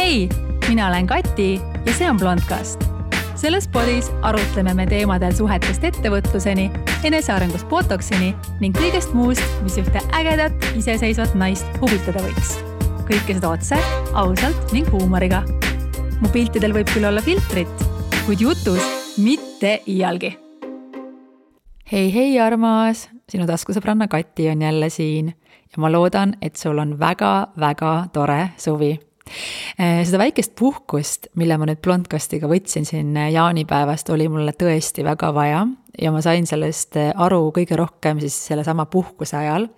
Hei, mina olen Kati ja see on Blondcast. Selles podis arutleme me teemadel suhetest ettevõtluseni, enesearengust botoksini ning kõigest muust, mis ühte ägedat, iseseisvat naist huvitada võiks. Kõike seda otse, ausalt ning huumoriga. Mu piltidel võib küll olla filtrit, kuid jutus mitte iialgi. Hei armas, sinu taskusõbranna Kati on jälle siin ja ma loodan, et sul on väga tore suvi. Seda väikest puhkust, mille ma nüüd Blondcastiga võtsin siin jaanipäevast, oli mulle tõesti väga vaja ja ma sain sellest aru kõige rohkem siis selle sama puhkuse ajal.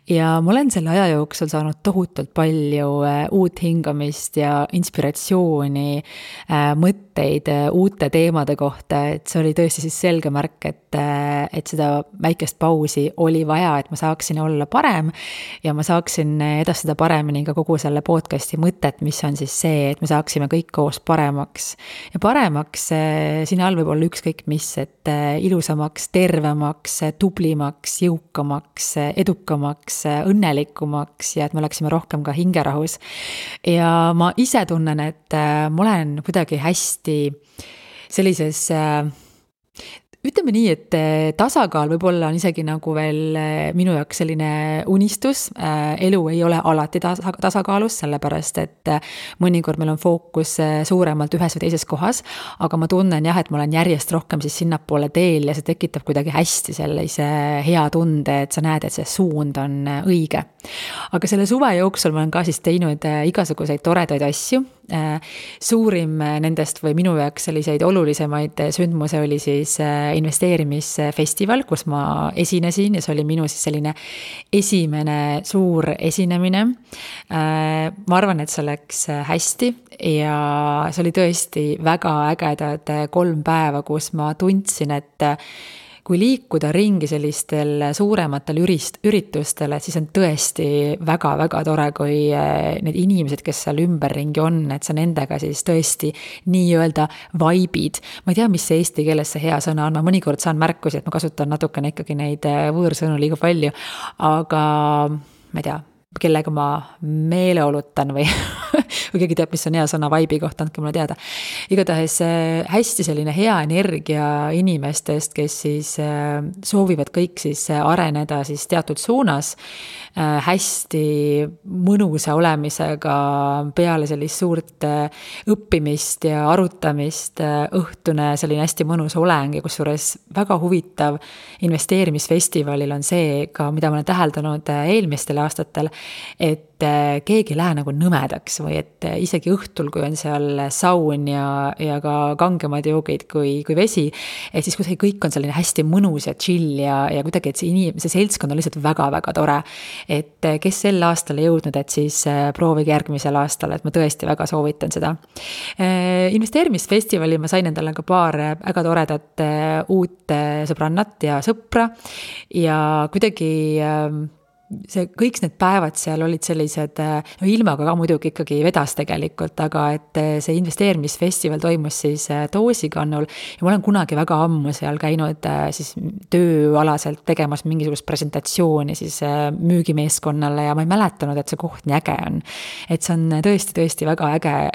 Ja ma olen selle aja jooksul saanud tohutult palju uut hingamist ja inspiratsiooni, mõtteid uute teemade kohta, et see oli tõesti siis selge märk, et seda väikest pausi oli vaja, et ma saaksin olla parem ja ma saaksin edastada paremini ka kogu selle podcasti mõtet, mis on siis see, et me saaksime kõik koos paremaks. Ja paremaks siin all võib olla ükskõik mis, et ilusamaks, tervemaks, tublimaks, jõukamaks, edukamaks, õnnelikumaks ja et me oleksime rohkem ka hingerahus. Ja ma ise tunnen, et ma olen kuidagi hästi sellises, ütleme nii, et tasakaal võib-olla on isegi nagu veel minu jaoks selline unistus. Elu ei ole alati tasakaalus, sellepärast, et mõnikord meil on fookus suuremalt ühes või teises kohas, aga ma tunnen jah, et ma olen järjest rohkem siis sinnapoole teel ja see tekitab kuidagi hästi sellise hea tunde, et sa näed, et see suund on õige. Aga selle suve jooksul ma olen ka siis teinud igasuguseid toredaid asju. Suurim nendest või minu jaoks selliseid olulisemaid sündmuse oli siis investeerimisfestival, kus ma esinesin ja see oli minu siis selline esimene suur esinemine. Ma arvan, et see läks hästi ja see oli tõesti väga ägedad 3 päeva, kus ma tundsin, et kui liikuda ringi sellistel suurematel üritustele, siis on tõesti väga tore, kui need inimesed, kes seal ümberringi on, et sa nendega siis tõesti nii-öelda vaibid. Ma ei tea, mis see eesti keeles see hea sõna on, ma mõnikord saan märkusi, et ma kasutan natukene ikkagi neid võõrsõnu liiga palju, aga ma ei tea, kellega ma meeleolutan või keegi teab, mis on hea sõna vaibi kohta, andke mulle teada. Igatahes hästi selline hea energia inimestest, kes siis soovivad kõik siis areneda siis teatud suunas, hästi mõnusa olemisega peale sellist suurt õppimist ja arutamist, õhtune selline hästi mõnus oleng ja kusjuures väga huvitav investeerimisfestivalil on see ka, mida ma olen täheldanud eelmistel aastatel, et keegi ei lähe nagu nõmedaks või et isegi õhtul, kui on seal saun ja ka kangemad joogid kui vesi, et siis kuidagi kõik on selline hästi mõnus ja chill ja kuidagi, et see seltskond on lihtsalt väga tore. Et kes sel aastal ei jõudnud, et siis proovige järgmisel aastal, et ma tõesti väga soovitan seda. Investeerimisfestivali ma sain endale ka paar väga toredat uut sõbrannat ja sõpra ja kuidagi kõik need päevad seal olid sellised, ilmaga ka muidugi ikkagi vedas tegelikult, aga et see investeerimisfestival toimus siis Toosikannul ja ma olen kunagi väga ammu seal käinud siis tööalaselt tegemas mingisugust presentatsiooni siis müügimeeskonnale ja ma ei mäletanud, et see koht nii äge on. Et see on tõesti väga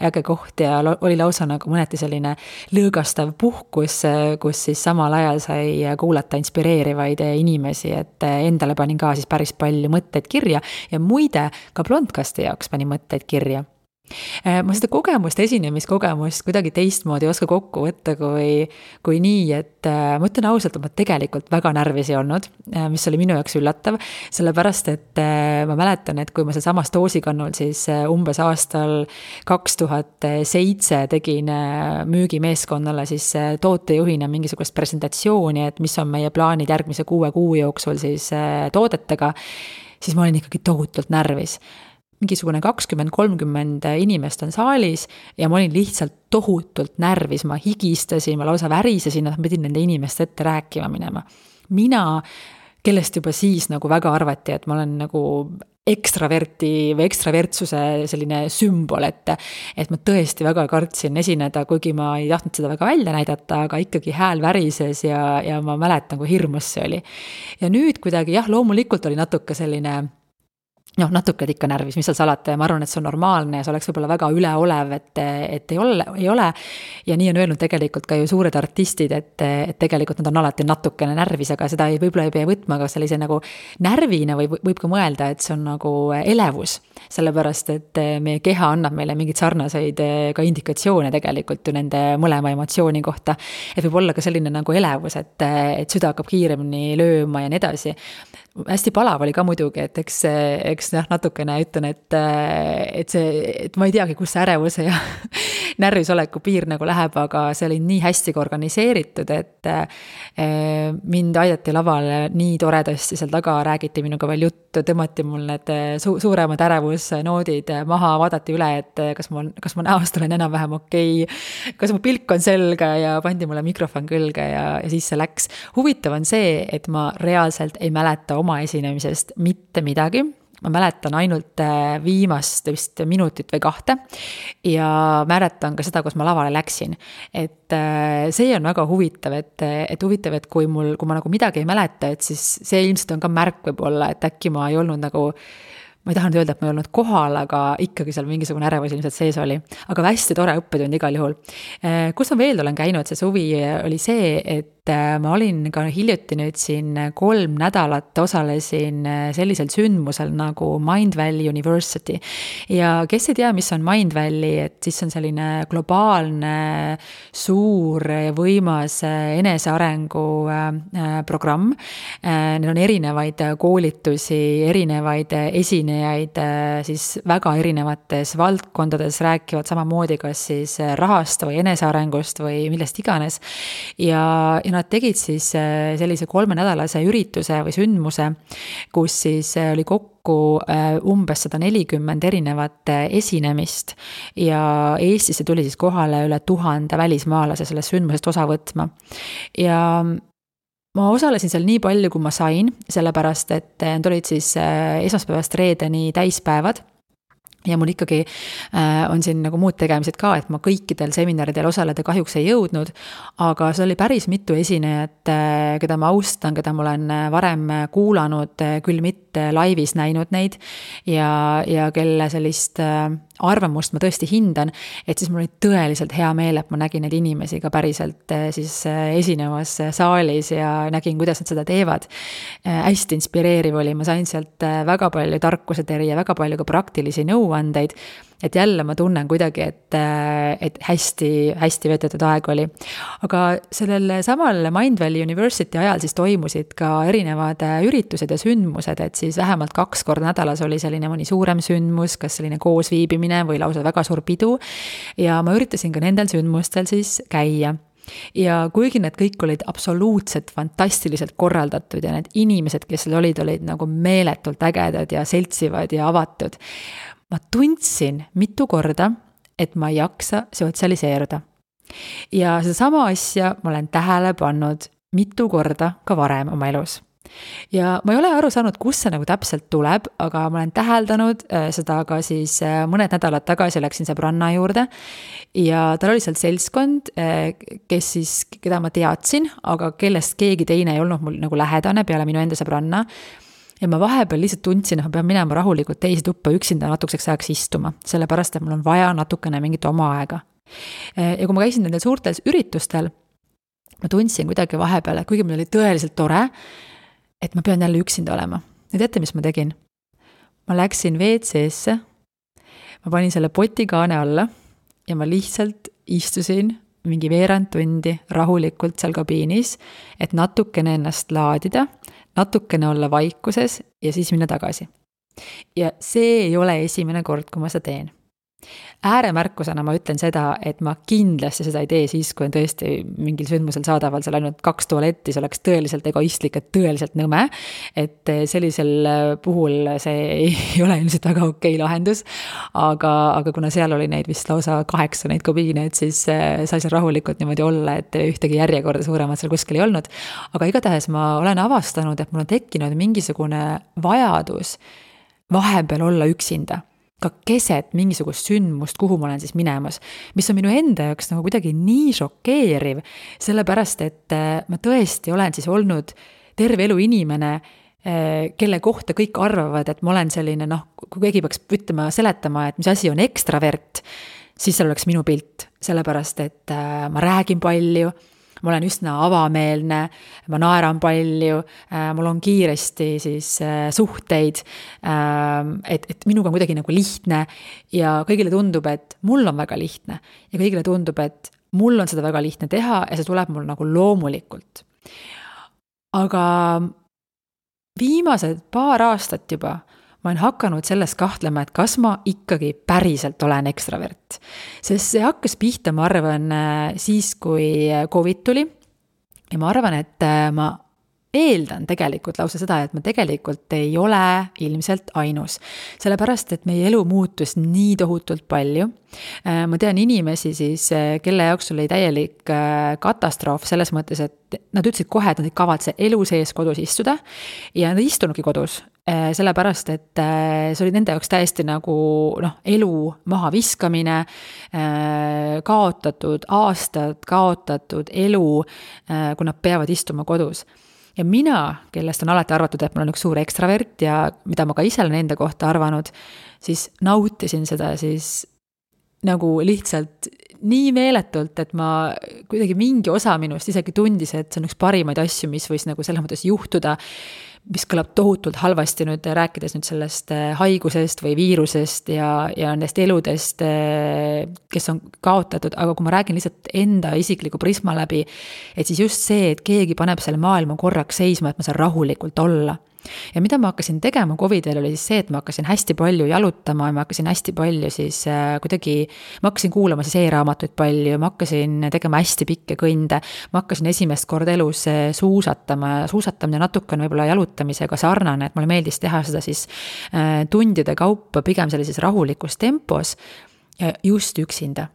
äge koht ja oli lausa nagu mõneti selline lõõgastav puhkus, kus siis samal ajal sai kuulata inspireerivaid inimesi, et endale panin ka siis päris palju mõtteid kirja ja muide ka Blondcasti jaoks pani mõtteid kirja. Ma seda esinemiskogemust kuidagi teistmoodi ei oska kokku võtta kui nii, et ma ütlen ausalt, et ma tegelikult väga närvis ei olnud, mis oli minu jaoks üllatav, sellepärast, et ma mäletan, et kui ma see samas Toosikannul siis umbes aastal 2007 tegin müügimeeskonnale siis tootejuhina mingisugust presentatsiooni, et mis on meie plaanid järgmise 6 kuu jooksul siis toodetega, siis ma olin ikkagi tohutult närvis. Mingisugune 20-30 inimest on saalis ja ma olin lihtsalt tohutult närvis, ma higistasin, ma lausa värisesin, et ma pidin nende inimeste ette rääkima minema. Mina, kellest juba siis nagu väga arvati, et ma olen nagu ekstraverti või ekstravertsuse selline sümbol, et ma tõesti väga kartsin esineda, kuigi ma ei tahtnud seda väga välja näidata, aga ikkagi hääl värises ja ma mäletan, kui hirmus see oli. Ja nüüd kuidagi, jah, loomulikult oli natuke selline natuke ikka närvis, mis seal salata ja ma arvan, et see on normaalne ja see oleks võib-olla väga üleolev, et ei ole. Ja nii on öelnud tegelikult ka ju suured artistid, et tegelikult nad on alati natukene närvis, aga seda võib-olla ei pea võtma ka sellise nagu närvina või võib ka mõelda, et see on nagu elevus. Sellepärast, et meie keha annab meile mingid sarnaseid ka indikatsioone tegelikult ju nende mõlema emotsiooni kohta. Et võib olla ka selline nagu elevus, et süda hakkab kiiremini lööma ja nii edasi. Hästi palav oli ka muidugi, et eks natukene ütlen, et ma ei teagi, kus see ärevuse ja närvisoleku piir nagu läheb, aga see oli nii hästi organiseeritud, et mind aidati lavale nii toredasti seal taga, räägiti minuga veel juttu, tõmmati mul need suuremad ärevusnoodid maha, vaadati üle, et kas ma näost olen enam-vähem okei, kas mu pilk on selge ja pandi mulle mikrofon külge ja siis see läks. Huvitav on see, et ma reaalselt ei mäleta oma esinemisest mitte midagi. Ma mäletan ainult viimast vist minutit või 2 ja mäletan ka seda, kus ma lavale läksin. Et see on väga huvitav, et huvitav, et kui ma nagu midagi ei mäleta, et siis see ilmselt on ka märk võib-olla, et äkki ma ei olnud nagu, ma ei taha nüüd öelda, et ma ei olnud kohal, aga ikkagi seal mingisugune ärevus ilmselt sees oli. Aga hästi tore õppetund igal juhul. Kus ma veel olen käinud, see suvi oli see, et ma olin ka hiljuti nüüd siin 3 nädalat osalesin sellisel sündmusel nagu Mindvalley University. Ja kes ei tea, mis on Mindvalley, et siis on selline globaalne, suur ja võimas enesearengu programm. Neil on erinevaid koolitusi, erinevaid esinejaid siis väga erinevates valdkondades rääkivad samamoodi kas siis rahast või enesearengust või millest iganes. Ja nad tegid siis sellise 3-nädalase ürituse või sündmuse, kus siis oli kokku umbes 140 erinevat esinemist ja Eestisse tuli siis kohale üle 1000 välismaalase sellest sündmusest osa võtma. Ja ma osalesin seal nii palju, kui ma sain, sellepärast, et need olid siis esmaspäevast reedeni täispäevad. Ja mul ikkagi on siin nagu muud tegemised ka, et ma kõikidel seminaridel osaleda kahjuks ei jõudnud, aga see oli päris mitu esinejat, keda ma austan, keda ma olen varem kuulanud, küll mitte laivis näinud neid ja kelle sellist arvamust ma tõesti hindan, et siis mul oli tõeliselt hea meel, et ma nägin neid inimesi ka päriselt siis esinevas saalis ja nägin, kuidas nad seda teevad. Hästi inspireeriv oli, ma sain sealt väga palju tarkuseteri ja väga palju ka praktilisi nõuandeid, et jälle ma tunnen kuidagi, et hästi veedetud aeg oli. Aga sellel samal Mindvalley University ajal siis toimusid ka erinevad üritused ja sündmused, et siis vähemalt 2 korda nädalas oli selline mõni suurem sündmus, kas selline koosviibimine või lausa väga suur pidu ja ma üritasin ka nendel sündmustel siis käia. Ja kuigi need kõik olid absoluutselt fantastiliselt korraldatud ja need inimesed, kes seal olid nagu meeletult ägedad ja seltsivad ja avatud, ma tundsin mitu korda, et ma ei jaksa sotsialiseeruda. Ja sedasama asja ma olen tähele pannud mitu korda ka varem oma elus. Ja ma ei ole aru saanud, kus see nagu täpselt tuleb, aga ma olen täheldanud seda ka siis mõned nädalad tagasi läksin sõbranna juurde ja tal oli seal seltskond, keda ma teadsin, aga kellest keegi teine ei olnud mul nagu lähedane peale minu enda sõbranna. Ja ma vahepeal lihtsalt tundsin, et ma pean minema rahulikult teisi tuppa üksinda natukeseks ajaks istuma, sellepärast, et mul on vaja natukene mingit oma aega. Ja kui ma käisin nendel suurtel üritustel, ma tundsin kuidagi vahepeal, et kuigi mul oli tõeliselt tore, et ma pean jälle üksinda olema. Ja teate, mis ma tegin? Ma läksin WC-sse, ma panin selle potikaane alla ja ma lihtsalt istusin mingi veerand tundi rahulikult seal kabiinis, et natukene ennast laadida, natukene olla vaikuses ja siis minna tagasi. Ja see ei ole esimene kord, kui ma seda teen. Ääremärkusena ma ütlen seda, et ma kindlasti seda ei tee siis, kui on tõesti mingil sündmusel saadaval seal ainult 2 tualetti, see oleks tõeliselt egoistlik, et tõeliselt nõme, et sellisel puhul see ei ole ilmselt väga okei lahendus, aga kuna seal oli neid vist lausa 8 neid kabiine, et siis sai seal rahulikult niimoodi olla, et ühtegi järjekorda suuremat seal kuskil ei olnud, aga igatahes ma olen avastanud, et mul on tekkinud mingisugune vajadus vahepeal olla üksinda, ka keset mingisugust sündmust, kuhu ma olen siis minemas, mis on minu enda jaoks nagu kuidagi nii šokeeriv, sellepärast, et ma tõesti olen siis olnud terve elu inimene, kelle kohta kõik arvavad, et ma olen selline, kui keegi peaks ütlema, seletama, et mis asi on ekstravert, siis seal oleks minu pilt, sellepärast, et ma räägin palju, ma olen üsna avameelne, ma naeran palju, mul on kiiresti siis suhteid, et minuga on kuidagi nagu lihtne ja kõigile tundub, et mul on väga lihtne ja kõigile tundub, et mul on seda väga lihtne teha ja see tuleb mul nagu loomulikult. Aga viimased paar aastat juba ma olen hakanud sellest kahtlema, et kas ma ikkagi päriselt olen ekstravert. Sest see hakkas pihta, ma arvan, siis, kui COVID tuli. Ja ma arvan, et ma eeldan tegelikult lausa seda, et ma tegelikult ei ole ilmselt ainus. Sellepärast, et meie elu muutus nii tohutult palju. Ma tean inimesi siis, kelle jaoks oli täielik katastroof selles mõttes, et nad ütlesid kohe, et nad ei kavatse elu sees kodus istuda ja nad ei istunudki kodus. Sellepärast, et see oli nende jaoks täiesti nagu elu maha viskamine, kaotatud aastad, kaotatud elu, kui nad peavad istuma kodus. Ja mina, kellest on alati arvatud, et ma olen üks suur ekstravert ja mida ma ka ise olen enda kohta arvanud, siis nautisin seda siis nagu lihtsalt nii meeletult, et ma kuidagi mingi osa minust isegi tundis, et see on üks parimaid asju, mis võis nagu selles mõttes juhtuda, mis kõlab tohutult halvasti nüüd rääkides nüüd sellest haigusest või viirusest ja nendest eludest, kes on kaotatud, aga kui ma räägin lihtsalt enda isikliku prisma läbi, et siis just see, et keegi paneb selle maailma korraks seisma, et ma saan rahulikult olla. Ja mida ma hakkasin tegema COVID-il oli siis see, et ma hakkasin hästi palju jalutama ja ma hakkasin hästi palju siis kuidagi, ma hakkasin kuulama siis e-raamatuid palju, ma hakkasin tegema hästi pikke kõnde, ma hakkasin esimest korda elus suusatama ja suusatamine natuke on võib-olla jalutamisega sarnane, et mulle meeldis teha seda siis tundide kaupa pigem sellises rahulikus tempos just üksinda.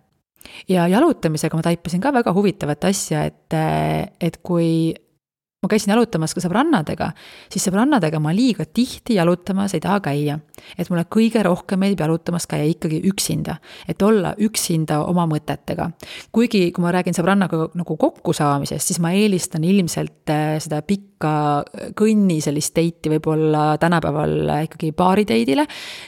Ja jalutamisega ma taipasin ka väga huvitavat asja, et kui ma käisin jalutamas ka sõbrannadega, siis sõbrannadega ma liiga tihti jalutamas ei taha käia. Et mulle kõige rohkem meeldib jalutamas käia ikkagi üksinda, et olla üksinda oma mõtetega. Kuigi, kui ma räägin sõbrannaga nagu kokkusaamisest, siis ma eelistan ilmselt seda pikka kõnni sellist teiti võib-olla tänapäeval ikkagi baariteidile,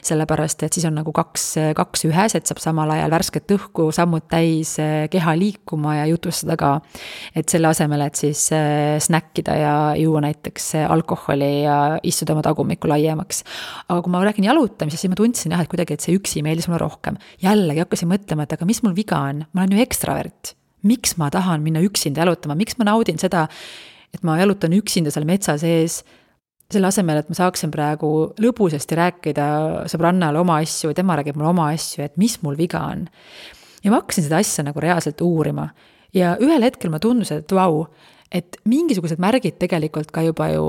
sellepärast, et siis on nagu kaks ühes, et saab samal ajal värsket õhku, sammud täis, keha liikuma ja jutustada ka. Et selle asemel, et siis snäkkida ja juua näiteks alkoholi ja istuda oma tagumikku laiemaks. Aga kui ma räägin jalutamisest, siis ma tundsin et kuidagi, et see üksi meeldis mulle rohkem. Jällegi hakkasin mõtlema, et aga mis mul viga on? Ma olen ju ekstravert. Miks ma tahan minna üksinda jalutama? Miks ma naudin seda, et ma jalutan üksinda seal metsa sees, selle asemel, et ma saaksin praegu lõbusasti rääkida sõbrannale oma asju, tema räägib mulle oma asju, et mis mul viga on. Ja ma hakkasin seda asja nagu reaalselt uurima. Ja ühel hetkel ma tundusin, et vau, et mingisugused märgid tegelikult ka juba ju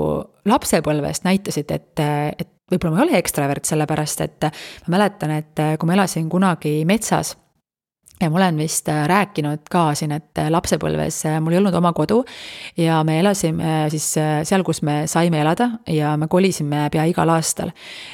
lapsepõlvest näitasid, et võib-olla ma ei ole ekstravert sellepärast, et ma mäletan, et kui ma elasin kunagi metsas, ja ma olen vist rääkinud ka siin, et lapsepõlves mul ei olnud oma kodu ja me elasime siis seal, kus me saime elada ja me kolisime pea igal aastal.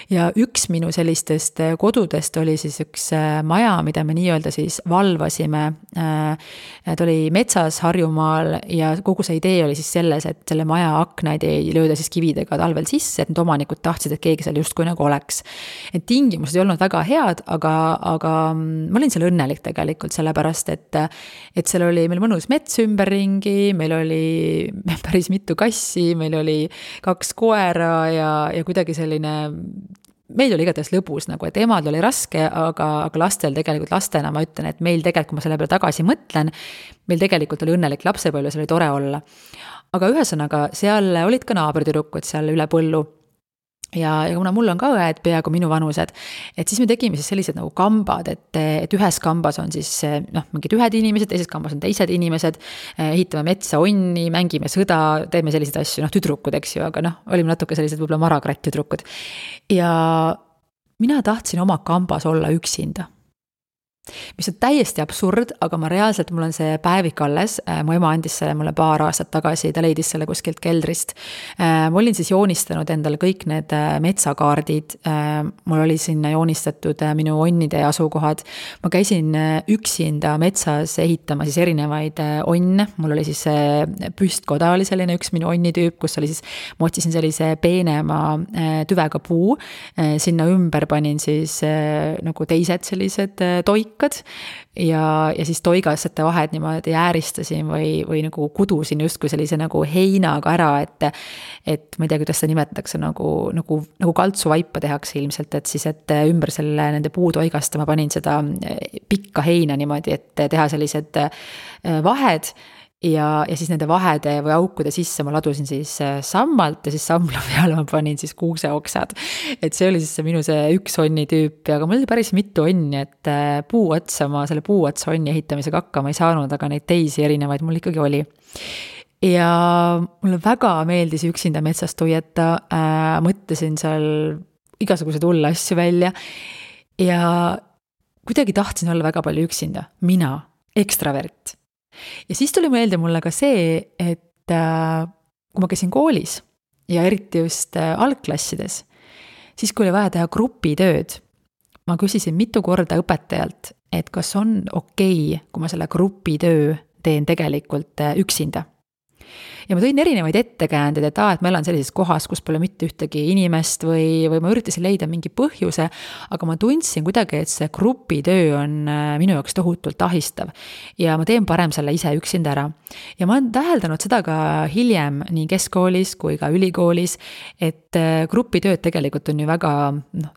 Ja üks minu sellistest kodudest oli siis üks maja, mida me nii-öelda siis valvasime. Ta oli metsas Harjumaal ja kogu see idee oli siis selles, et selle maja aknaid ei lööda siis kividega talvel sisse, et need omanikud tahtsid, et keegi seal justkui nagu oleks. Et tingimused ei olnud väga head, aga ma olin seal õnnelik tegelikult. Sellepärast, et seal oli meil mõnus mets ümberringi, meil oli päris mitu kassi, meil oli 2 koera ja kuidagi selline, meil oli igatahes lõbus, nagu, et emad oli raske, aga lastel tegelikult lastena ma ütlen, et meil tegelikult, kui ma selle peale tagasi mõtlen, meil tegelikult oli õnnelik lapsepõlve, seal oli tore olla. Aga ühesõnaga, seal olid ka naabritüdrukud seal üle põllu. Ja kuna mul on ka õed peaaegu minu vanused, et siis me tegime siis sellised nagu kambad, et ühes kambas on siis mingid ühed inimesed, teises kambas on teised inimesed, ehitame metsa onni, mängime sõda, teeme selliseid asju, tüdrukud, eks ju, aga olime natuke sellised võib-olla marakratt tüdrukud. Ja mina tahtsin oma kambas olla üksinda. mis on täiesti absurd, aga ma reaalselt, mul on see päevik alles, mu ema andis selle mulle paar aastat tagasi, ta leidis selle kuskilt keldrist. Ma olin siis joonistanud endale kõik need metsakaardid, mul oli sinna joonistatud minu onnide asukohad, ma käisin üksinda metsas ehitama siis erinevaid onne, mul oli siis püstkoda oli selline üks minu onnitüüp, kus oli siis, ma otsisin sellise peenema tüvega puu, sinna ümber panin siis nagu teised sellised toikad ja siis toigasete vahed niimoodi ääristasin või nagu kudusin justkui sellise nagu heinaga ära, et ma ei tea, kuidas seda nimetatakse, nagu kaltsuvaipa tehakse ilmselt, et siis, et ümber selle nende puutoigasta ma panin seda pikka heina niimoodi, et teha sellised vahed ja siis nende vahede või aukude sisse ma ladusin siis sammalt ja siis samla peale ma panin siis kuuseoksad. Et see oli siis see minu see üks onnitüüp, aga mul oli päris mitu onni, et ma selle puuotsa onni ehitamisega hakkama ei saanud, aga neid teisi erinevaid mul ikkagi oli. Ja mulle väga meeldis üksinda metsas tuieta, mõtlesin seal igasuguseid hulle asju välja ja kuidagi tahtsin olla väga palju üksinda, mina, ekstravert. Ja siis tuli meelde mulle ka see, et kui ma käisin koolis ja eriti just algklassides, siis kui oli vaja teha grupitööd, ma küsisin mitu korda õpetajalt, et kas on okei, kui ma selle grupitöö teen tegelikult üksinda. Ja ma tõin erinevaid ettekäändeid, et ma elan sellises kohas, kus pole mitte ühtegi inimest või ma üritasin leida mingi põhjuse, aga ma tundsin kuidagi, et see grupitöö on minu jaoks tohutult ahistav ja ma teen parem selle ise üksinda ära. Ja ma olen täheldanud seda ka hiljem nii keskkoolis kui ka ülikoolis, et grupitööd tegelikult on ju väga,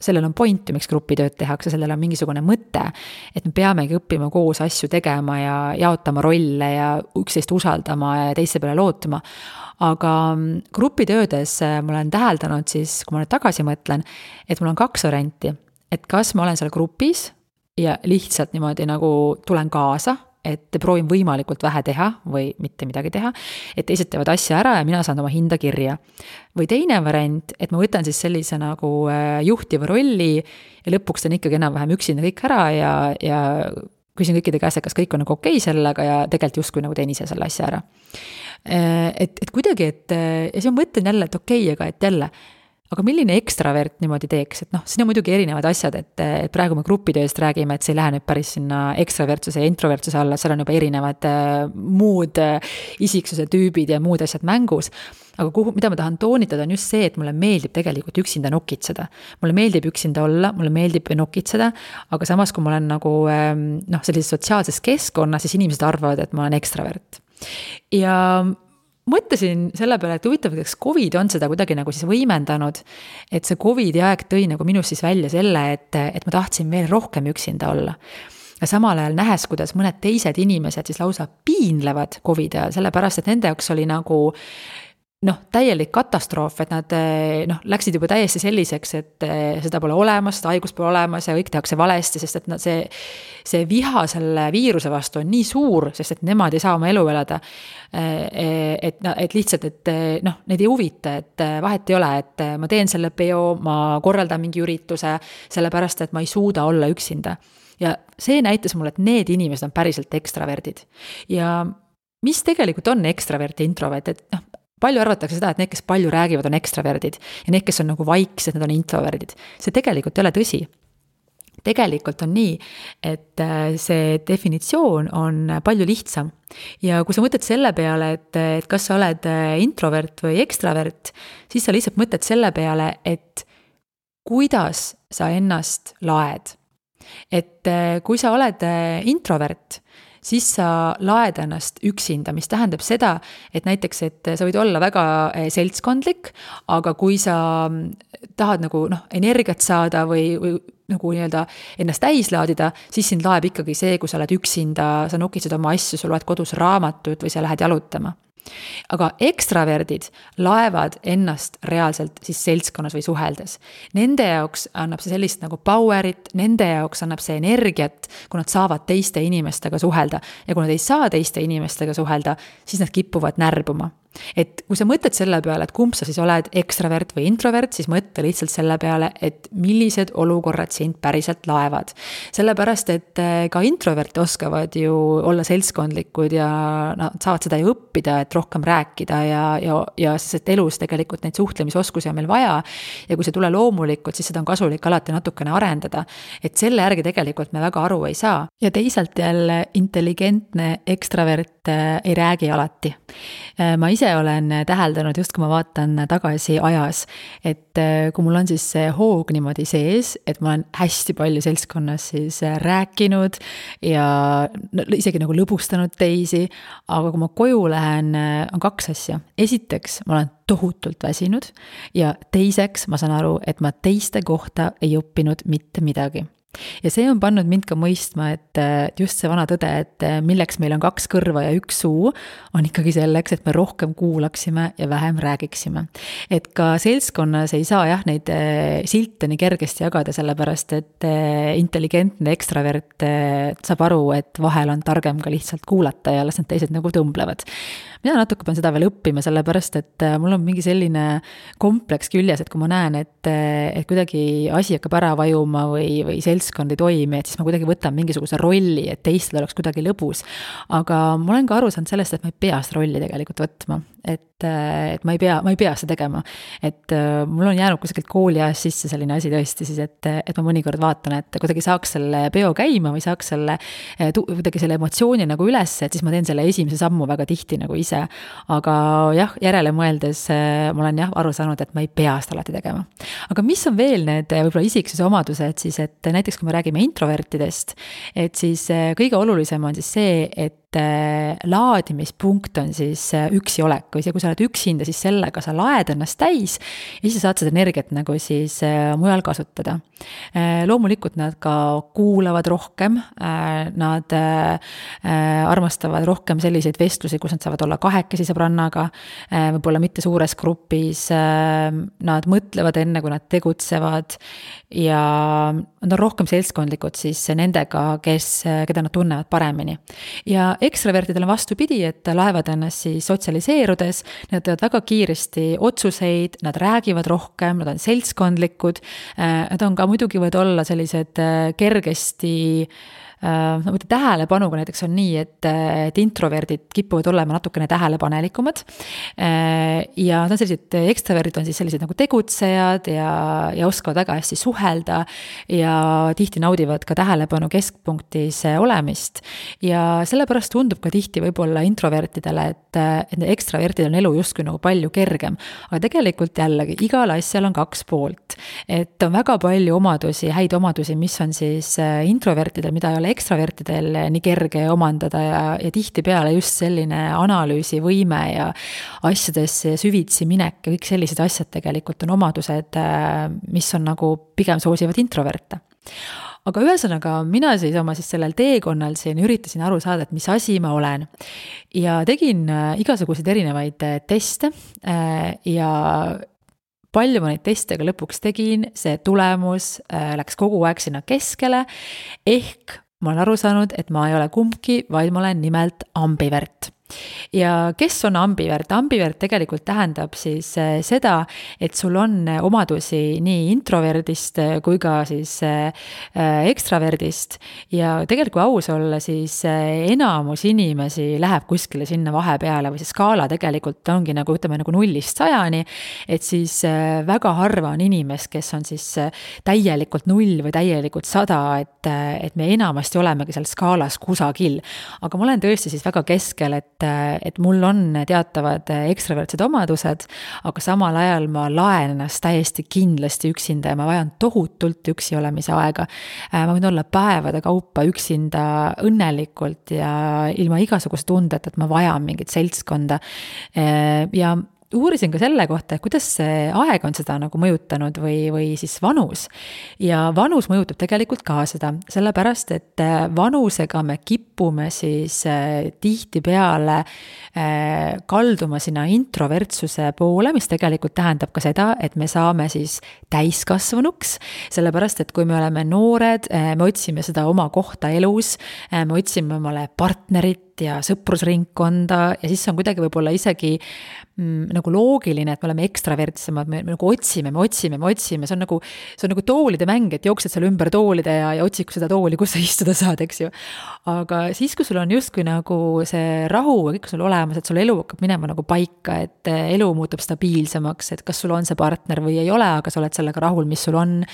sellel on point, miks grupitööd tehakse, sellel on mingisugune mõte, et me peamegi õppima koos asju tegema ja jaotama rolle ja üksteist usaldama ja teiste peale lootma. Aga grupitöödes ma olen täheldanud siis, kui ma nüüd tagasi mõtlen, et mul on 2 varianti, et kas ma olen seal grupis ja lihtsalt niimoodi nagu tulen kaasa, et proovin võimalikult vähe teha või mitte midagi teha, et teised teevad asja ära ja mina saan oma hinda kirja. Või teine variant, et ma võtan siis sellise nagu juhtiva rolli ja lõpuks teen ikkagi enam-vähem üksinda kõik ära ja küsin kõikide käest, et kas kõik on nagu okei sellega ja tegelikult justkui nagu teen ise selle asja ära. Et kuidagi, ja siis ma mõtlen jälle, et okei, aga et jälle, aga milline ekstravert niimoodi teeks, et siin on muidugi erinevad asjad, et praegu me grupitööst räägime, et see ei lähe nüüd päris sinna ekstravertsuse ja introvertsuse alla, seal on juba erinevad muud isiksuse tüübid ja muud asjad mängus, aga mida ma tahan toonitada on just see, et mulle meeldib tegelikult üksinda nokitseda. Mulle meeldib üksinda olla, mulle meeldib nokitseda, aga samas kui ma olen nagu sellises sotsiaalses keskkonnas, siis inimesed arvavad, et ma olen ekstravert. Ja mõtlesin selle peale, et huvitav, kas COVID on seda kuidagi nagu siis võimendanud, et see COVID-i aeg tõi nagu minust siis välja selle, et ma tahtsin veel rohkem üksinda olla. Ja samal ajal nähes, kuidas mõned teised inimesed siis lausa piinlevad COVID-i ajal, sellepärast, et nende jaoks oli nagu täielik katastroof, et nad läksid juba täiesti selliseks, et seda pole olemas, seda haigust pole olemas ja kõik tehakse valesti, sest et see viha selle viiruse vastu on nii suur, sest et nemad ei saa oma elu elada, et lihtsalt, et neid ei huvita, et vahet ei ole, et ma teen selle peo, ma korraldan mingi ürituse, sellepärast, et ma ei suuda olla üksinda. Ja see näitas mulle, et need inimesed on päriselt ekstraverdid. Ja mis tegelikult on ekstravert ja introvert, et palju arvatakse seda, et need, kes palju räägivad, on ekstraverdid ja need, kes on nagu vaiksed, need on introverdid. See tegelikult ei ole tõsi. Tegelikult on nii, et see definitsioon on palju lihtsam. Ja kui sa mõtled selle peale, et kas sa oled introvert või ekstravert, siis sa lihtsalt mõtled selle peale, et kuidas sa ennast laed. Et kui sa oled introvert, siis sa laed ennast üksinda, mis tähendab seda, et näiteks, et sa võid olla väga seltskondlik, aga kui sa tahad nagu energiat saada või nagu nii-öelda ennast täis laadida, siis sind laeb ikkagi see, kui sa oled üksinda, sa nokitsed oma asju, sa loed kodus raamatut või sa lähed jalutama. Aga ekstraverdid laevad ennast reaalselt siis seltskonnas või suheldes. Nende jaoks annab see sellist nagu powerit, nende jaoks annab see energiat, kui nad saavad teiste inimestega suhelda. Ja kui nad ei saa teiste inimestega suhelda, siis nad kipuvad närbuma. Et kui sa mõtled selle peale, et kumb sa siis oled, ekstravert või introvert, siis mõtle lihtsalt selle peale, et millised olukorrad sind päriselt laevad. Sellepärast, et ka introvert oskavad ju olla seltskondlikud ja nad saavad seda ju õppida, et rohkem rääkida ja sest elus tegelikult neid suhtlemisoskusi on meil vaja ja kui see tule loomulikult, siis seda on kasulik alati natukene arendada. Et selle järgi tegelikult me väga aru ei saa. Ja teisalt jälle intelligentne ekstravert ei räägi alati. Ma ise olen täheldanud, just kui ma vaatan tagasi ajas, et kui mul on siis see hoog niimoodi sees, et ma olen hästi palju seltskonnas siis rääkinud ja isegi nagu lõbustanud teisi, aga kui ma koju lähen, on 2 asja. Esiteks, ma olen tohutult väsinud ja teiseks ma saan aru, et ma teiste kohta ei õppinud mitte midagi. Ja see on pannud mind ka mõistma, et just see vana tõde, et milleks meil on 2 kõrva ja 1 suu, on ikkagi selleks, et me rohkem kuulaksime ja vähem räägiksime. Et ka seltskonnas ei saa neid silte nii kergesti jagada, sellepärast, et intelligentne ekstravert saab aru, et vahel on targem ka lihtsalt kuulata ja las need teised nagu tõmblevad. Mina natuke pean seda veel õppima, sellepärast, et mul on mingi selline kompleks küljes, et kui ma näen, et kuidagi asi hakkab ära vajuma või seltskond ei toimi, et siis ma kuidagi võtan mingisuguse rolli, et teistel oleks kuidagi lõbus. Aga ma olen ka aru saanud sellest, et ma ei pea seda rolli tegelikult võtma. Et ma ei pea seda tegema. Et mul on jäänud kuskilt kooli ajast sisse selline asi tõesti siis, et ma mõnikord vaatan, et kuidagi saaks selle peo käima või saaks kuidagi selle emotsiooni nagu üles, et siis ma teen selle esimese sammu väga tihti nagu ise. Aga jah, järele mõeldes ma olen aru saanud, et ma ei pea seda alati tegema. Aga mis on veel need võib-olla isiksuse omadused siis, et näiteks kui me räägime introvertidest, et siis kõige olulisem on siis see, et laadimispunkt on siis üksi olek, või see, kui sa oled üksinda, siis sellega sa laed ennast täis ja siis saad seda energiat nagu siis mujal kasutada. Loomulikult nad ka kuulavad rohkem, nad armastavad rohkem selliseid vestlusi, kus nad saavad olla 2 sõbrannaga, võib-olla mitte suures grupis, nad mõtlevad enne, kui nad tegutsevad ja nad on rohkem seltskondlikud siis nendega, keda nad tunnevad paremini. Ja ekstravertidel on vastupidi, et laevad ennast siis sotsialiseerudes, nad teevad väga kiiresti otsuseid, nad räägivad rohkem, nad on seltskondlikud, nad on ka muidugi võivad olla sellised kergesti tähelepanuga näiteks on nii, et introverdid kipuvad olema natukene tähelepanelikumad ja nad on sellised ekstraverdid on siis sellised nagu tegutsejad ja oskavad väga hästi suhelda ja tihti naudivad ka tähelepanu keskpunktis olemist ja sellepärast tundub ka tihti võib-olla introvertidele, et ekstravertidel on elu justkui nagu palju kergem, aga tegelikult jällegi igal asjal on 2 poolt, et on väga palju omadusi, häid omadusi, mis on siis introvertidel, mida ei ole ekstravertidel nii kerge omandada ja tihtipeale just selline analüüsivõime ja asjadesse süvitsi minek ja kõik sellised asjad tegelikult on omadused, mis on nagu pigem soosivad introverte. Aga ühesõnaga mina siis oma sellel teekonnal siin üritasin aru saada, et mis asi ma olen ja tegin igasuguseid erinevaid teste ja palju ma neid teste ka lõpuks tegin, see tulemus läks kogu aeg sinna keskele, ehk ma olen aru saanud, et ma ei ole kumbki, vaid ma olen nimelt ambivert. Ja kes on ambivert? Ambivert tegelikult tähendab siis seda, et sul on omadusi nii introverdist kui ka siis ekstraverdist ja tegelikult kui aus olla, siis enamus inimesi läheb kuskile sinna vahepeale või see skaala tegelikult ongi nagu 0-100, et siis väga harva on inimest, kes on siis täielikult 0 või täielikult 100, et me enamasti olemegi seal skaalas kusagil. Aga ma olen tõesti siis väga keskel, et mul on teatavad ekstravertsed omadused, aga samal ajal ma laen ennast täiesti kindlasti üksinda ja ma vajan tohutult üksi olemise aega. Ma võin olla päevade kaupa üksinda õnnelikult ja ilma igasuguse tundeta, et ma vajan mingit seltskonda ja uurisin ka selle kohta, et kuidas see aeg on seda nagu mõjutanud või siis vanus. Ja vanus mõjutab tegelikult ka seda, sellepärast, et vanusega me kipume siis tihtipeale kalduma sinna introvertsuse poole, mis tegelikult tähendab ka seda, et me saame siis täiskasvanuks, sellepärast, et kui me oleme noored, me otsime seda oma kohta elus, me otsime omale partnerit, ja sõprusringkonda ja siis on kuidagi võib-olla isegi nagu loogiline, et me oleme ekstravertsemad, me nagu otsime, see on nagu toolide mäng, et jooksed seal ümber toolide ja otsid seda tooli, kus sa istuda saad, eks ju. Aga siis, kui sul on justkui nagu see rahu ja kõik sul olemas, et sul elu hakkab minema nagu paika, et elu muutub stabiilsemaks, et kas sul on see partner või ei ole, aga sa oled sellega rahul, mis sul on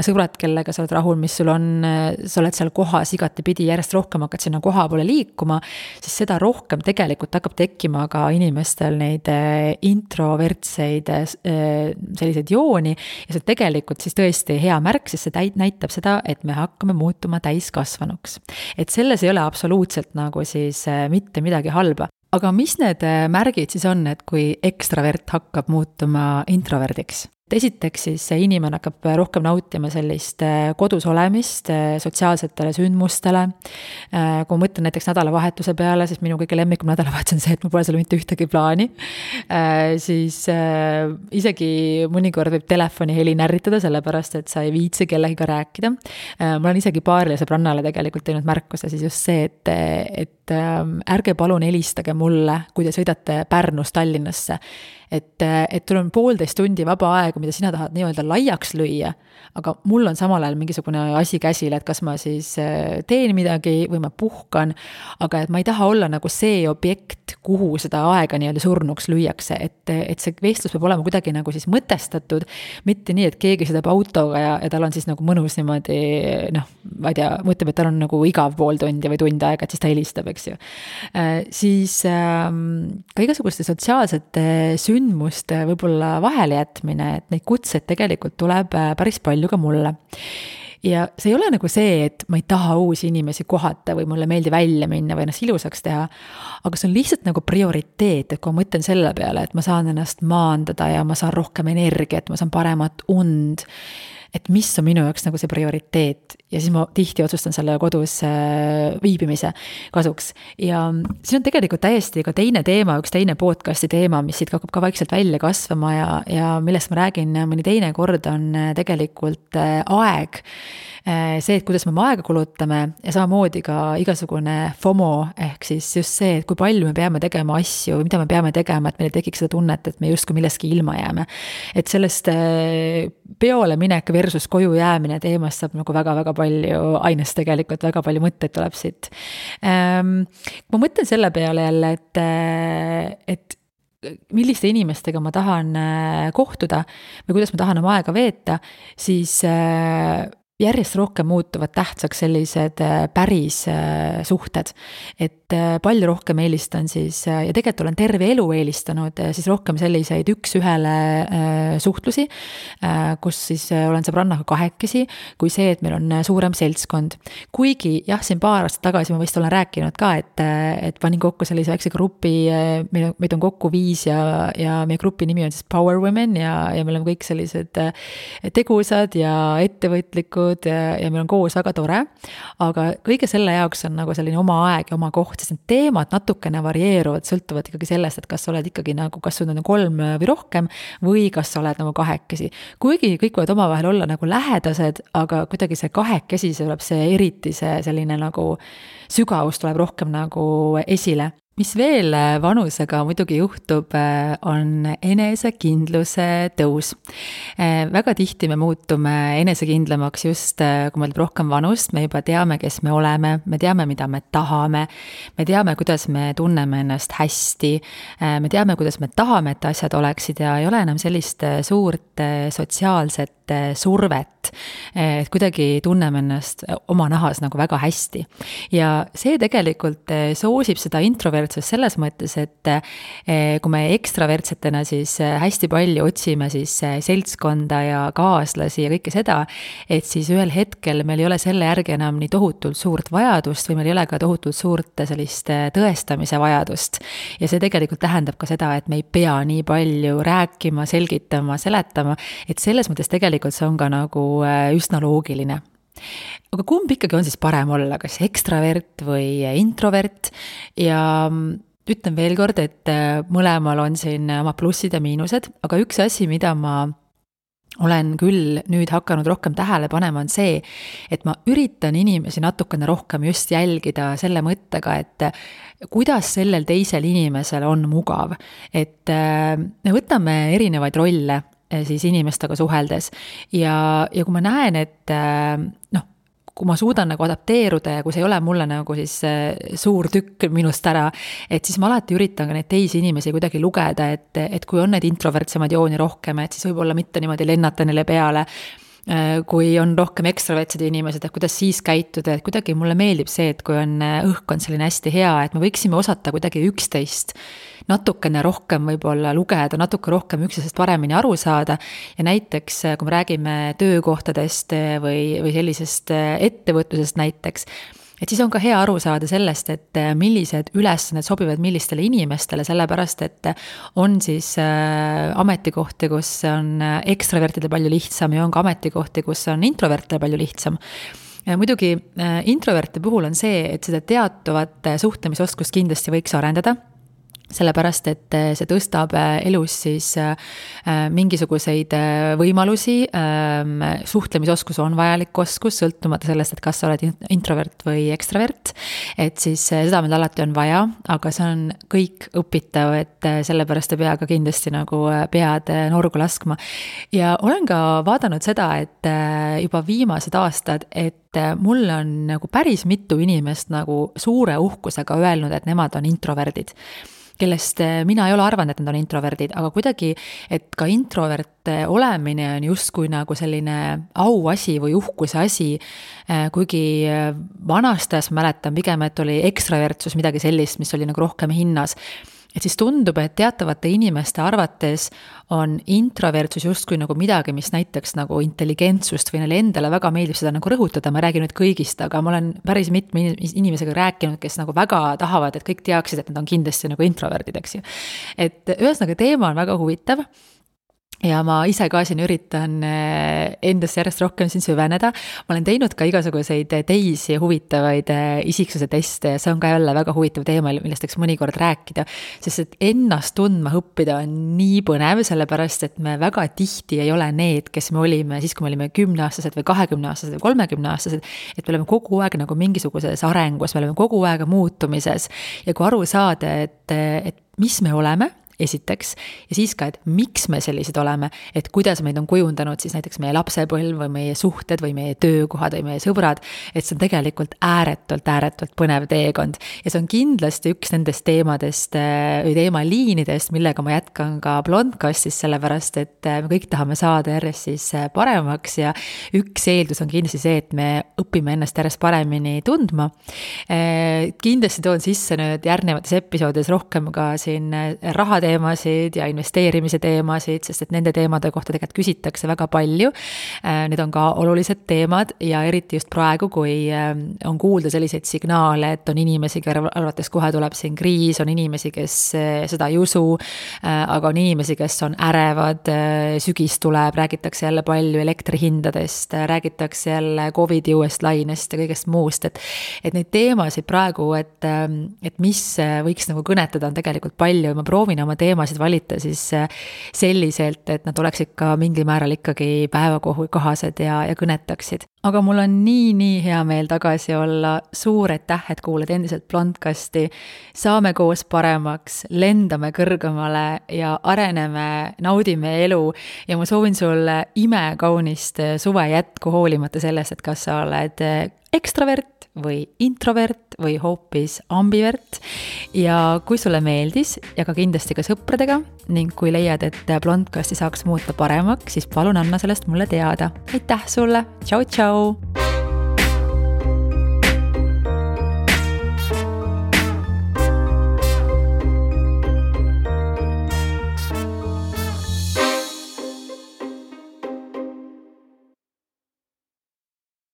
sõbrad, kellega sa oled rahul, mis sul on, sa oled seal kohas igatepidi, järjest rohkem hakkad sinna koha poole liikuma, siis seda rohkem tegelikult hakkab tekkima ka inimestel neid introvertseid selliseid jooni ja see tegelikult siis tõesti hea märk, sest see näitab seda, et me hakkame muutuma täiskasvanuks. Et selles ei ole absoluutselt nagu siis mitte midagi halba. Aga mis need märgid siis on, et kui ekstravert hakkab muutuma introverdiks? Esiteks siis see inimene hakkab rohkem nautima sellist kodus olemist sotsiaalsetele sündmustele. Kui ma mõtlen näiteks nädalavahetuse peale, siis minu kõige lemmikum nädalavahetus on see, et mul pole seal mitte ühtegi plaani. Siis isegi mõnikord võib telefoni heli närritada, sellepärast, et sa ei viitsi kellegiga rääkida. Ma olen isegi paarile sõbrannale tegelikult teinud märkuse, siis just see, et ärge palun helistage mulle, kui te sõidate Pärnust Tallinnasse. Et tul on 1,5 tundi vaba aega, mida sina tahad nii-öelda laiaks lüüa, aga mul on samal ajal mingisugune asi käsil, et kas ma siis teen midagi või ma puhkan, aga et ma ei taha olla nagu see objekt, kuhu seda aega nii-öelda surnuks lüüakse, et see vestlus peab olema kuidagi nagu siis mõtestatud, mitte nii, et keegi sõidab autoga ja tal on siis nagu mõnus niimoodi, ma ei tea, mõtleb, et tal on nagu igav 0,5 tundi või tund aega, et siis ta helistab, eks ju. Siis ka igasuguste sotsiaalsete sündmuste võib-olla vahele jätmine, et neid kutseid tegelikult tuleb päris palju ka mulle. Ja see ei ole nagu see, et ma ei taha uusi inimesi kohata või mulle meeldi välja minna või ennast ilusaks teha, aga see on lihtsalt nagu prioriteet, et kui ma mõtlen selle peale, et ma saan ennast maandada ja ma saan rohkem energiat, ma saan paremat und, et mis on minu jaoks nagu see prioriteet ja siis ma tihti otsustan selle kodus viibimise kasuks. Ja siin on tegelikult täiesti ka teine teema, üks teine podcasti teema, mis siit hakkab ka vaikselt välja kasvama ja millest ma räägin mõni teine kord on tegelikult aeg. See, et kuidas me oma aega kulutame ja samamoodi ka igasugune FOMO ehk siis just see, et kui palju me peame tegema asju või mida me peame tegema, et meil tekiks seda tunnet, et me justkui millestki ilma jääme. Et sellest peole minek versus koju jäämine teemast saab nagu väga-väga palju ainest tegelikult, väga palju mõtteid tuleb siit. Ma mõtlen selle peale jälle, et milliste inimestega ma tahan kohtuda või kuidas ma tahan oma aega veeta, siis järjest rohkem muutuvad tähtsaks sellised päris suhted, et palju rohkem eelistan siis, ja tegelikult olen terve elu eelistanud siis rohkem selliseid üks-ühele suhtlusi, kus siis olen sõbrannaga kahekesi, kui see, et meil on suurem seltskond. Kuigi jah, siin paar aastat tagasi ma vist olen rääkinud ka, et panin kokku sellise väikse grupi, meid on kokku 5 ja meie grupi nimi on siis Power Women ja me oleme kõik sellised tegusad ja ettevõtlikud ja meil on koos väga tore, aga kõige selle jaoks on nagu selline oma aeg ja oma koht, sest need teemad natukene varieeruvad, sõltuvad ikkagi sellest, et kas sa oled ikkagi nagu, kas sul on 3 või rohkem või kas sa oled nagu kahekesi. Kuigi kõik võivad omavahel olla nagu lähedased, aga kuidagi see kahekesi, see tuleb see eriti see selline nagu sügavus tuleb rohkem nagu esile. Mis veel vanusega muidugi juhtub, on enesekindluse tõus. Väga tihti me muutume enesekindlamaks just, kui meil rohkem vanust, me juba teame, kes me oleme, me teame, mida me tahame, me teame, kuidas me tunneme ennast hästi, me teame, kuidas me tahame, et asjad oleksid ja ei ole enam sellist suurt sotsiaalset survet, et kuidagi tunneme ennast oma nahas nagu väga hästi. Ja see tegelikult soosib seda introvertsust selles mõttes, et kui me ekstravertsetena siis hästi palju otsime siis seltskonda ja kaaslasi ja kõike seda, et siis ühel hetkel meil ei ole selle järgi enam nii tohutult suurt vajadust või meil ei ole ka tohutult suurt sellist tõestamise vajadust. Ja see tegelikult tähendab ka seda, et me ei pea nii palju rääkima, selgitama, seletama, et selles mõttes tegelikult see on ka nagu üsna loogiline. Aga kumb ikkagi on siis parem olla, kas ekstravert või introvert? Ja ütlen veel kord, et mõlemal on siin oma plussid ja miinused, aga üks asi, mida ma olen küll nüüd hakanud rohkem tähele panema, on see, et ma üritan inimesi natukene rohkem just jälgida selle mõttega, et kuidas sellel teisel inimesel on mugav. Et me võtame erinevaid rolle siis inimestega suheldes ja kui ma näen, et kui ma suudan nagu adapteeruda ja kui see ei ole mulle nagu siis suur tükk minust ära, et siis ma alati üritan ka neid teisi inimesi kuidagi lugeda, et kui on neid introvertsemaid jooni rohkem, et siis võib-olla mitte niimoodi lennata neile peale, kui on rohkem ekstravertsed inimesed, et kuidas siis käituda, et kuidagi mulle meeldib see, et kui on õhkkond selline hästi hea, et me võiksime osata kuidagi üksteist natukene rohkem võib-olla lugeda, natuke rohkem üksteisest paremini aru saada ja näiteks, kui me räägime töökohtadest või sellisest ettevõtlusest näiteks, et siis on ka hea aru saada sellest, et millised ülesanded sobivad millistele inimestele, sellepärast et on siis ametikohti, kus on ekstravertidel palju lihtsam ja on ka ametikohti, kus on introvertidel palju lihtsam. Ja muidugi introverte puhul on see, et seda teatavat suhtlemisoskust kindlasti võiks arendada, sellepärast, et see tõstab elus siis mingisuguseid võimalusi, suhtlemisoskus on vajalik oskus, sõltumata sellest, et kas sa oled introvert või ekstravert, et siis seda meil alati on vaja, aga see on kõik õpitav, et sellepärast ei pea ka kindlasti nagu pead norgu laskma. Ja olen ka vaadanud seda, et juba viimased aastad, et mul on nagu päris mitu inimest nagu suure uhkusega öelnud, et nemad on introverdid, kellest mina ei ole arvanud, et nad on introverdid, aga kuidagi, et ka introvert olemine on justkui nagu selline auasi või uhkuse asi, kuigi vanastas mäletan pigem, et oli ekstravertsus midagi sellist, mis oli nagu rohkem hinnas. Et siis tundub, et teatavate inimeste arvates on introvertsus justkui nagu midagi, mis näiteks nagu intelligentsust või neile endale väga meeldib seda nagu rõhutada, ma räägin nüüd kõigist, aga ma olen päris mitme inimesega rääkinud, kes nagu väga tahavad, et kõik teaksid, et nad on kindlasti nagu introverdid, eks ju. Et ühesõnaga teema on väga huvitav. Ja ma ise ka siin üritan endasse järjest rohkem siin süveneda. Ma olen teinud ka igasuguseid teisi huvitavaid isiksuse teste ja see on ka jälle väga huvitav teema, millest võiks mõnikord rääkida, sest et ennast tundma õppida on nii põnev, sellepärast et me väga tihti ei ole need, kes me olime siis, kui me olime 10-aastased või 20-aastased või 30-aastased, et me oleme kogu aeg nagu mingisuguses arengus, me oleme kogu aeg muutumises ja kui aru saada, et mis me oleme, esiteks, ja siis ka, et miks me sellised oleme, et kuidas meid on kujundanud siis näiteks meie lapsepõlv või meie suhted või meie töökohad või meie sõbrad, et see on tegelikult ääretult põnev teekond. Ja see on kindlasti üks nendest teemadest või teemaliinidest, millega ma jätkan ka Blondcastis, sellepärast, et me kõik tahame saada järjest siis paremaks ja üks eeldus on kindlasti see, et me õpime ennast järjest paremini tundma. Kindlasti toon sisse nüüd järgnevates episoodides rohkem ka siin rahateemasid ja investeerimise teemasid, sest et nende teemade kohta tegelikult küsitakse väga palju. Need on ka olulised teemad ja eriti just praegu, kui on kuulda selliseid signaale, et on inimesi, kelle arvates kohe tuleb siin kriis, on inimesi, kes seda ei usu, aga on inimesi, kes on ärevad, sügis tuleb, räägitakse jälle palju elektrihindadest, räägitakse jälle COVID-i uuest lainest ja kõigest muust, et neid teemasid praegu, et mis võiks nagu kõnetada, on tegelikult palju ja ma proovin oma teemasid valita siis selliselt, et nad oleksid ka mingil määral ikkagi päevakohased ja kõnetaksid. Aga mul on nii hea meel tagasi olla, suur aitäh, et kuulad endiselt Blondcasti, saame koos paremaks, lendame kõrgemale ja areneme, naudime elu ja ma soovin sulle imekaunist suve jätku hoolimata sellest, et kas sa oled ekstravert või introvert või hoopis ambivert ja kui sulle meeldis ja ka kindlasti ka sõpradega ning kui leiad, et Blondcasti saaks muuta paremaks, siis palun anna sellest mulle teada. Aitäh sulle, tšau!